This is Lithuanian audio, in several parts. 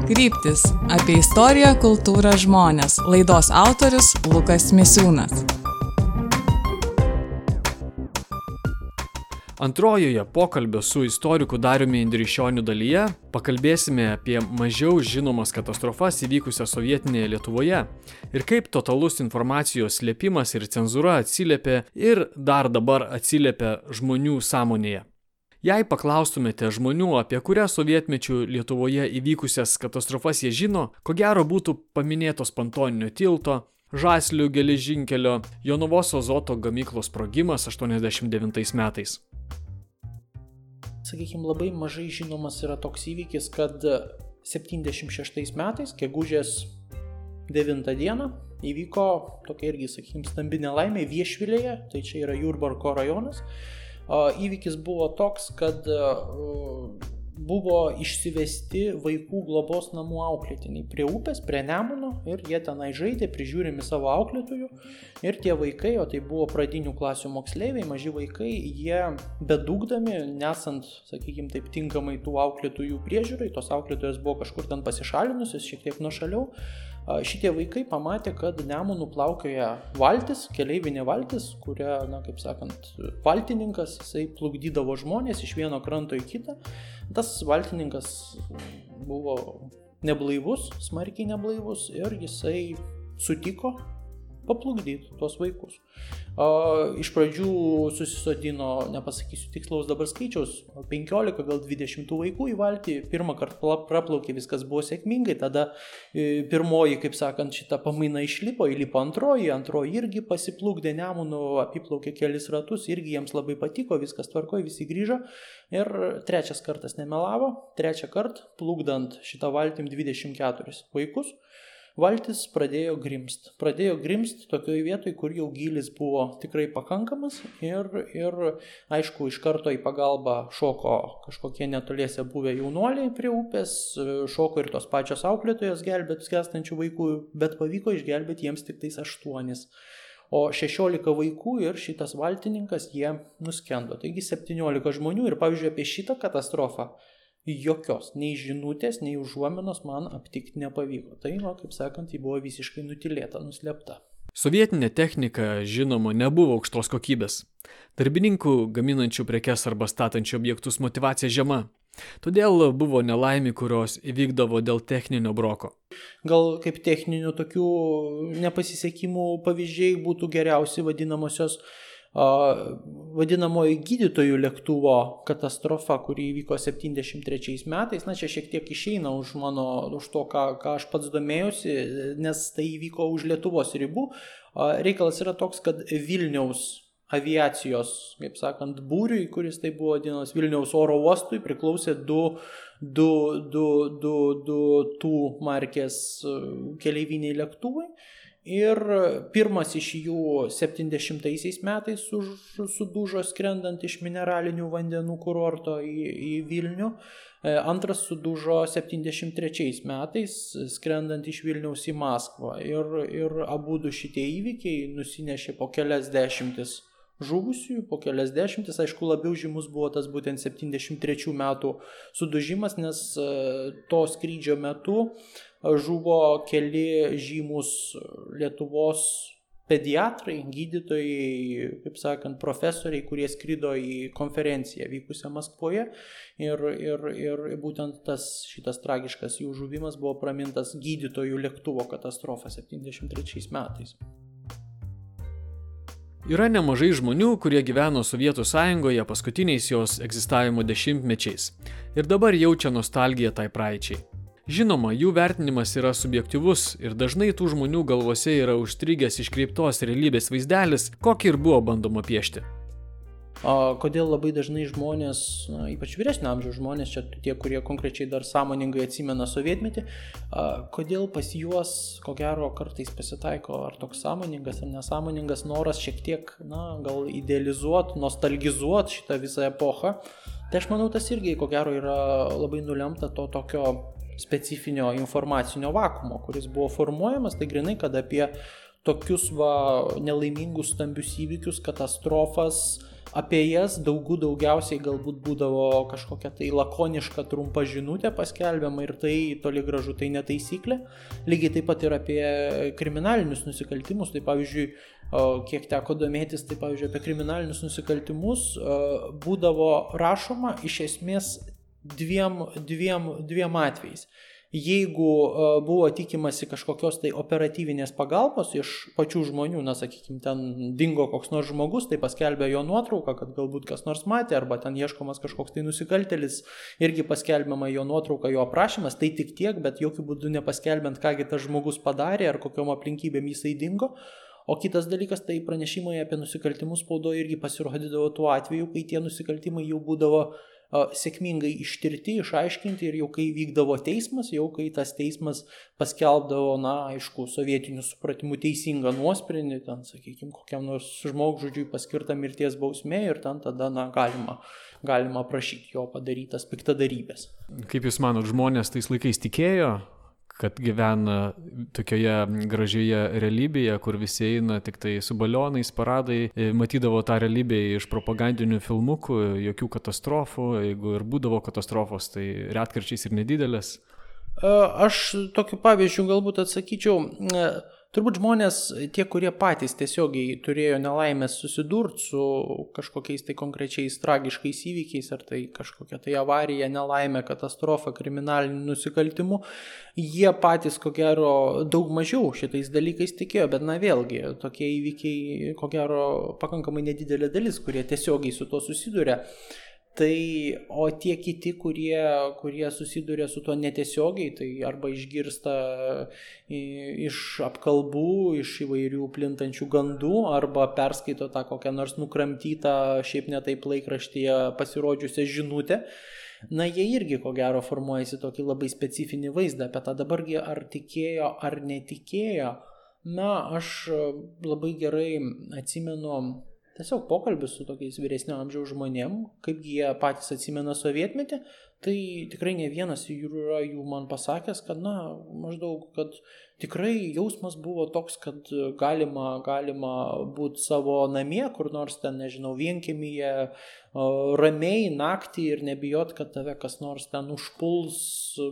Kryptis – apie istoriją, kultūrą, žmones. Laidos autorius Lukas Misiūnas. Antrojoje pokalbio su istoriku Dariumi Indrišioniu dalyje pakalbėsime apie mažiau žinomas katastrofas įvykusias sovietinėje Lietuvoje ir kaip totalus informacijos slėpimas ir cenzūra atsiliepė ir dar dabar atsiliepia žmonių sąmonėje. Jei paklaustumėte žmonių, apie kurią sovietmečių Lietuvoje įvykusias katastrofas jie žino, ko gero būtų paminėtos Pontoninio tilto, Žaslių geležinkelio, Jonavos azoto gamyklos sprogimas 89 metais. Sakykime, labai mažai žinomas yra toks įvykis, kad 76 metais, gegužės 9 dieną, įvyko tokia irgi, sakykime, stambi nelaimė Viešvilėje, tai čia yra Jurbarko rajonas. Įvykis buvo toks, kad buvo išsivesti vaikų globos namų auklėtiniai prie upės, prie Nemuno ir jie tenai žaidė, prižiūrimi savo auklėtojų ir tie vaikai, o tai buvo pradinių klasių moksleiviai, maži vaikai, jie bedugdami, nesant, sakykime, taip tinkamai tų auklėtojų priežiūrai, tos auklėtojos buvo kažkur ten pasišalinusios, šiek tiek nuošaliau. Šitie vaikai pamatė, kad Nemunu plaukioja valtis, keleivinė valtis, kuria, kaip sakant, valtininkas, jisai plukdydavo žmonės iš vieno kranto į kitą. Tas valtininkas buvo neblaivus, smarkiai neblaivus ir jisai sutiko paplukdyti tuos vaikus. Iš pradžių susisodino, nepasakysiu tikslaus dabar skaičiaus, 15, gal 20 vaikų į valtį. Pirmą kartą praplaukė, viskas buvo sėkmingai, tada pirmoji, kaip sakant, šita pamaina išlipo, įlipo antroji irgi pasiplukdė Nemunu, apiplaukė kelis ratus, irgi jiems labai patiko, viskas tvarkoje, visi grįžo. Ir trečias kartas nemelavo, trečią kartą plukdant šitą valtim 24 vaikus, valtis pradėjo grimst. Pradėjo grimst tokioje vietoje, kur jau gylis buvo tikrai pakankamas ir aišku, iš karto į pagalbą šoko kažkokie netoliese buvę jaunuoliai prie upės, šoko ir tos pačios auklėtojos gelbėti skęstančių vaikų, bet pavyko išgelbėti jiems tik tais 8. O 16 vaikų ir šitas valtininkas, jie nuskendo. Taigi 17 žmonių ir, pavyzdžiui, apie šitą katastrofą jokios, nei žinutės, nei užuominos man aptikti nepavyko. Tai, kaip sakant, ji buvo visiškai nutilėta, nuslėpta. Sovietinė technika, žinoma, nebuvo aukštos kokybės. Darbininkų gaminančių prekes arba statančių objektus motyvacija žema. Todėl buvo nelaimė, kurios įvykdavo dėl techninio broko. Gal kaip techninių tokių nepasisekimų pavyzdžiai būtų geriausi vadinamoji gydytojų lėktuvo katastrofa, kuri įvyko 73 metais. Čia šiek tiek išeina už to, ką aš pats domėjausi, nes tai įvyko už Lietuvos ribų. Reikalas yra toks, kad Vilniaus aviacijos, kaip sakant, būriui, kuris tai buvo vadinamas Vilniaus oro uostui, priklausė du tų markės keleiviniai lėktuvai. Ir pirmas iš jų 70 metais sudužo skrendant iš mineralinių vandenų kurorto į Vilnių. Antras sudužo 73 metais skrendant iš Vilniaus į Maskvą. Ir abudu šitie įvykiai nusinešė po kelias dešimtis žuvusiųjų, po kelias dešimtis. Aišku, labiau žymus buvo tas būtent 73 metų sudužimas, nes to skrydžio metu žuvo keli žymus Lietuvos pediatrai, gydytojai, kaip sakant, profesoriai, kurie skrido į konferenciją vykusią Maskvoje ir būtent šitas tragiškas jų žuvimas buvo pramintas gydytojų lėktuvo katastrofa 73 metais. Yra nemažai žmonių, kurie gyveno Sovietų Sąjungoje paskutiniais jos egzistavimo dešimtmečiais ir dabar jaučia nostalgiją tai praeičiai. Žinoma, jų vertinimas yra subjektyvus ir dažnai tų žmonių galvose yra užstrigęs iškreiptos realybės vaizdelis, kokį ir buvo bandoma piešti. Kodėl labai dažnai žmonės, ypač vyresnio amžiaus žmonės, čia tie, kurie konkrečiai dar sąmoningai atsimena sovietmetį, kodėl pas juos, ko gero, kartais pasitaiko ar toks sąmoningas ar nesąmoningas noras šiek tiek, gal idealizuoti, nostalgizuoti šitą visą epochą. Tai aš manau, tas irgi, ko gero, yra labai nulemta to tokio specifinio informacinio vakuumo, kuris buvo formuojamas, tai grinai, kad apie tokius nelaimingus stambius įvykius, katastrofas, apie jas daugiausiai galbūt būdavo kažkokia tai lakoniška trumpa žinutė paskelbiama ir tai toli gražu tai netaisyklė. Lygiai taip pat ir apie kriminalinius nusikaltimus. Tai pavyzdžiui, kiek teko domėtis, tai pavyzdžiui apie kriminalinius nusikaltimus būdavo rašoma iš esmės dviem atvejais. Jeigu buvo tikimasi kažkokios tai operatyvinės pagalbos iš pačių žmonių, sakykime, ten dingo koks nors žmogus, tai paskelbė jo nuotrauką, kad galbūt kas nors matė, arba ten ieškomas kažkoks tai nusikaltėlis, irgi paskelbiama jo nuotrauka, jo aprašymas, tai tik tiek, bet jokių būdų nepaskelbiant, kągi tas žmogus padarė, ar kokiom aplinkybėm jisai dingo. O kitas dalykas, tai pranešimai apie nusikaltimus spaudoje irgi pasirodydavo tuo atveju, kai tie nusikaltimai jau būdavo sėkmingai ištirti, išaiškinti ir jau kai vykdavo teismas, jau kai tas teismas paskelbdavo, aišku, sovietinių supratimų teisingą nuosprendį, ten, sakykime, kokiam nors žmogžudžiui paskirta mirties bausmė ir ten tada, galima prašyti jo padarytas piktadarybės. Kaip Jūs manot, žmonės tais laikais tikėjo, kad gyvena tokioje gražioje realybėje, kur visi eina tik tai su balionais, paradai, matydavo tą realybę iš propagandinių filmukų, jokių katastrofų, jeigu ir būdavo katastrofos, tai retkarčiais ir nedidelės? Aš tokiu pavyzdžiu galbūt atsakyčiau, turbūt žmonės, tie, kurie patys tiesiogiai turėjo nelaimės susidurti su kažkokiais tai konkrečiais tragiškais įvykiais, ar tai kažkokia tai avarija, nelaimė, katastrofa, kriminalinių nusikaltimų, jie patys, ko gero, daug mažiau šitais dalykais tikėjo, bet vėlgi, tokie įvykiai, ko gero, pakankamai nedidelė dalis, kurie tiesiogiai su to susiduria. O tie kiti, kurie susiduria su tuo netiesiogiai, tai arba išgirsta iš apkalbų, iš įvairių plintančių gandų, arba perskaito tą kokią nors nukramtytą, šiaip ne taip laikraštyje pasirodžiusią žinutę, jie irgi ko gero formuojasi tokį labai specifinį vaizdą apie tą. Dabargi ar tikėjo, ar netikėjo, aš labai gerai atsimenu tiesiog pokalbis su tokiais vyresnio amžiaus žmonėm, kaip jie patys atsimena sovietmetį, tai tikrai ne vienas yra jų man pasakęs, kad maždaug, kad tikrai jausmas buvo toks, kad galima būti savo namie, kur nors ten, nežinau, vienkiemyje, ramiai naktį ir nebijot, kad tave kas nors ten užpuls,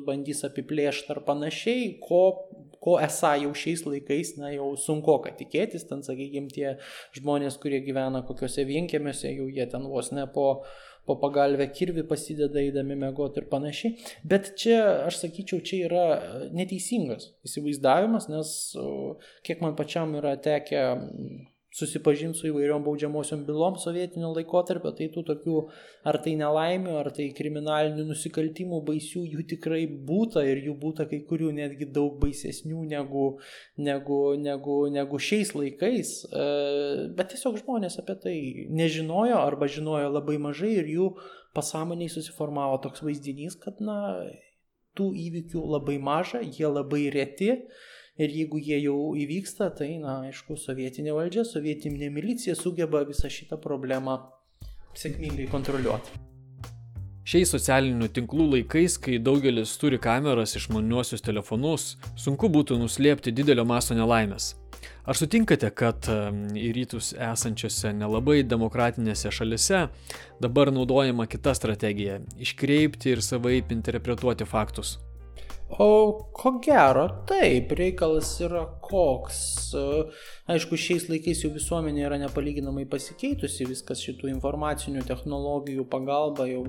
bandys apiplėšti ar panašiai, ko esą jau šiais laikais, jau sunkoka tikėtis, ten, sakykime, tie žmonės, kurie gyvena kokiuose vienkiemiuose, jau jie ten vos ne po pagalvę kirvį pasideda eidami miegoti ir panašiai. Bet čia, aš sakyčiau, čia yra neteisingas įsivaizdavimas, nes kiek man pačiam yra tekę susipažinti su įvairiom baudžiamosiom bylom sovietinio laikotarpio, tai tų tokių, ar tai nelaimių, ar tai kriminalinių nusikaltimų baisių, jų tikrai būta ir jų būta kai kurių netgi daug baisesnių negu šiais laikais, bet tiesiog žmonės apie tai nežinojo arba žinojo labai mažai ir jų pasąmoniai susiformavo toks vaizdinys, kad tų įvykių labai maža, jie labai reti. Ir jeigu jie jau įvyksta, tai, aišku, sovietinė valdžia, sovietinė milicija sugeba visą šitą problemą sėkmingai kontroliuoti. Šiais socialinių tinklų laikais, kai daugelis turi kameras, išmaniuosius telefonus, sunku būtų nuslėpti didelio masto nelaimės. Ar sutinkate, kad į rytus esančiose nelabai demokratinėse šalise dabar naudojama kita strategija – iškreipti ir savaip interpretuoti faktus? O ko gero, taip, reikalas yra koks. Aišku, šiais laikais jau visuomenė yra nepalyginamai pasikeitusi, viskas šitų informacinių technologijų pagalba jau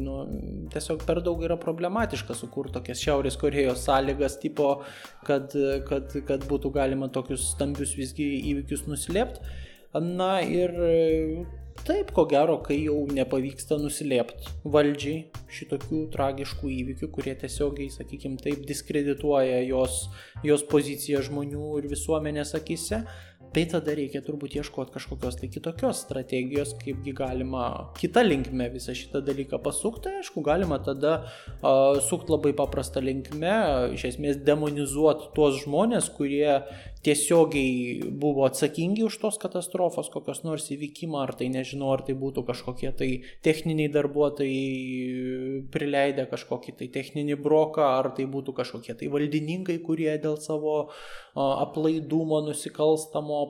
tiesiog per daug yra problematiška sukurti tokias Šiaurės Korėjos sąlygas tipo, kad būtų galima tokius stambius visgi įvykius nuslėpti. Ir taip, ko gero, kai jau nepavyksta nuslėpti valdžiai šitokių tragiškų įvykių, kurie tiesiogiai, sakykime, taip diskredituoja jos poziciją žmonių ir visuomenės akise, tai tada reikia turbūt ieškoti kažkokios tai kitokios strategijos, kaipgi galima kitą linkme visą šitą dalyką pasukti. Aišku, galima tada sukti labai paprastą linkme, iš esmės demonizuoti tuos žmonės, kurie tiesiogiai buvo atsakingi už tos katastrofos, kokios nors įvykimą, ar tai nežinau, ar tai būtų kažkokie tai techniniai darbuotojai prileidę kažkokį tai techninį broką, ar tai būtų kažkokie tai valdininkai, kurie dėl savo aplaidumo, nusikalstamo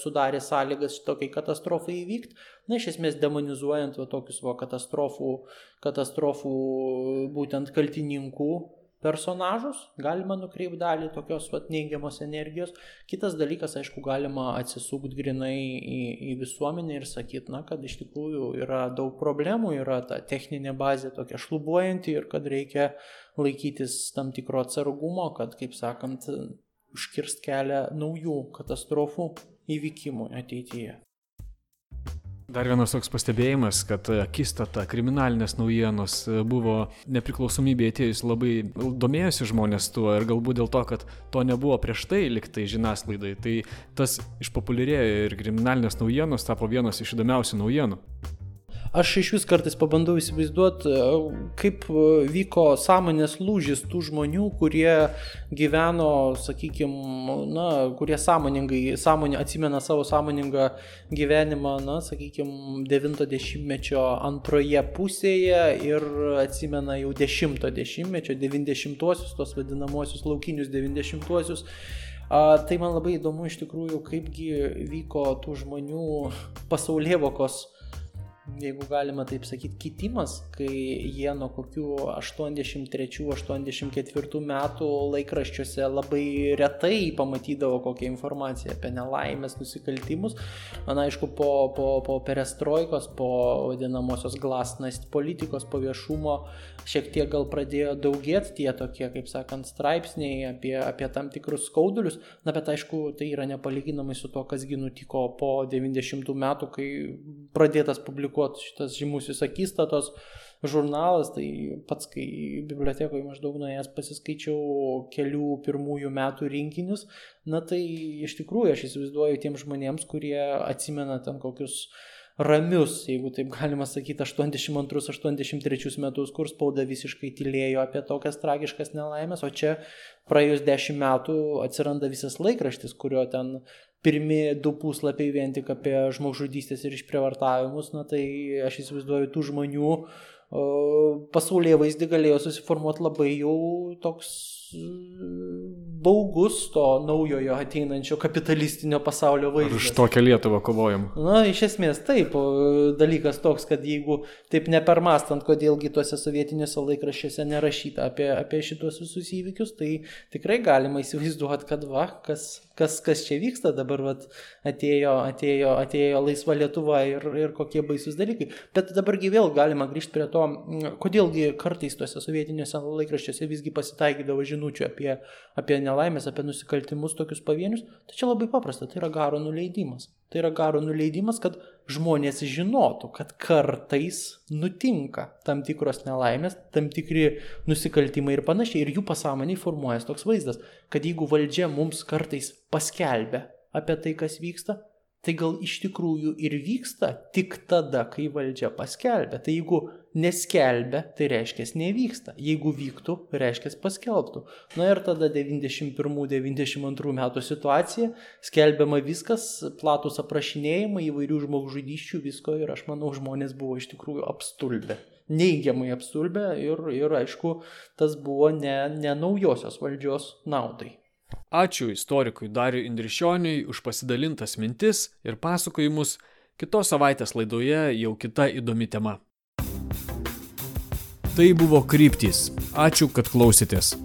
sudarė sąlygas šitokiai katastrofai įvykti. Na, iš esmės demonizuojant tokius katastrofų būtent kaltininkų personažus, galima nukreipti dalį tokios neigiamos energijos. Kitas dalykas, aišku, galima atsisukti grinai į visuomenę ir sakyti, kad iš tikrųjų yra daug problemų, yra ta techninė bazė tokia šlubuojanti ir kad reikia laikytis tam tikro atsargumo, kad, kaip sakant, užkirst kelią naujų katastrofų įvykimų ateityje. Dar vienas toks pastebėjimas, kad akistata kriminalinės naujienos buvo nepriklausomybė atėjus labai domėjosi žmonės tuo ir galbūt dėl to, kad to nebuvo prieš tai liktai žiniasklaidai, tai tas išpopuliarėjo ir kriminalinės naujienos tapo vienas iš įdomiausių naujienų. Aš iš vis kartais pabandau įsivaizduoti, kaip vyko sąmonės lūžis tų žmonių, kurie gyveno, sakykime, kurie atsimena savo sąmoningą gyvenimą, 90-mečio antroje pusėje ir atsimena jau 10-mečio, 90-uosius, tos vadinamosius laukinius 90-uosius. Tai man labai įdomu iš tikrųjų, kaipgi vyko tų žmonių pasaulėvokos, jeigu galima taip sakyti, kitimas, kai jie nuo kokių 83-84 metų laikraščiuose labai retai pamatydavo kokią informaciją apie nelaimės, nusikaltimus. Man aišku, po perestroikos, po vadinamosios glasnost politikos, po viešumo šiek tiek gal pradėjo daugėti tie tokie, kaip sakant, straipsniai apie tam tikrus skaudulius, bet aišku, tai yra nepalyginamai su to, kasgi nutiko po 90 metų, kai pradėtas publikuoti šitas žymusis akistatos žurnalas. Tai pats, kai bibliotekoje maždaug nuėjęs pasiskaičiau kelių pirmųjų metų rinkinius, tai iš tikrųjų aš įsivaizduoju tiem žmonėms, kurie atsimena ten kokius ramius, jeigu taip galima sakyti, 82-83 metus, kur spauda visiškai tylėjo apie tokias tragiškas nelaimės, o čia praėjus 10 metų atsiranda visas laikraštis, kurio ten pirmi 2 puslapiai vien tik apie žmogžudystės ir išprievartavimus. Tai aš įsivaizduoju, tų žmonių pasaulyje vaizdį galėjo susiformuoti labai jau toks baugus to naujojo ateinančio kapitalistinio pasaulio vaizdas. Ar už tokią Lietuvą kovojam? Iš esmės taip. Dalykas toks, kad jeigu taip nepermastant, kodėlgi tuose sovietiniuose laikraščiuose nerašyta apie šitos visus įvykius, tai tikrai galima įsivaizduoti, kad kas čia vyksta dabar, atėjo laisva Lietuva ir kokie baisus dalykai. Bet dabargi vėl galima grįžti prie to, kodėlgi kartais tuose sovietiniuose laikraščiuose visgi pasitaikydavo žinučių apie nelaimės, apie nusikaltimus tokius pavienius. Tai čia labai paprasta, tai yra garo nuleidimas. Tai yra garo nuleidimas, kad žmonės žinotų, kad kartais nutinka tam tikros nelaimės, tam tikri nusikaltimai ir panašiai. Ir jų pasąmonėje formuojas toks vaizdas, kad jeigu valdžia mums kartais paskelbia apie tai, kas vyksta, tai gal iš tikrųjų ir vyksta tik tada, kai valdžia paskelbia. Tai jeigu neskelbia, tai reiškia nevyksta. Jeigu vyktų, reiškia paskelbtų. Ir tada 91-92 metų situacija, skelbiama viskas, platus aprašinėjimai, įvairių žmogžudysčių, visko, ir aš manau, žmonės buvo iš tikrųjų apstulbę. Neigiamai apstulbę ir aišku, tas buvo ne naujosios valdžios naudai. Ačiū istorikui Dariui Indrišioniui už pasidalintas mintis ir pasakojimus. Kitos savaitės laidoje jau kita įdomi tema. Tai buvo Kryptys. Ačiū, kad klausėtės.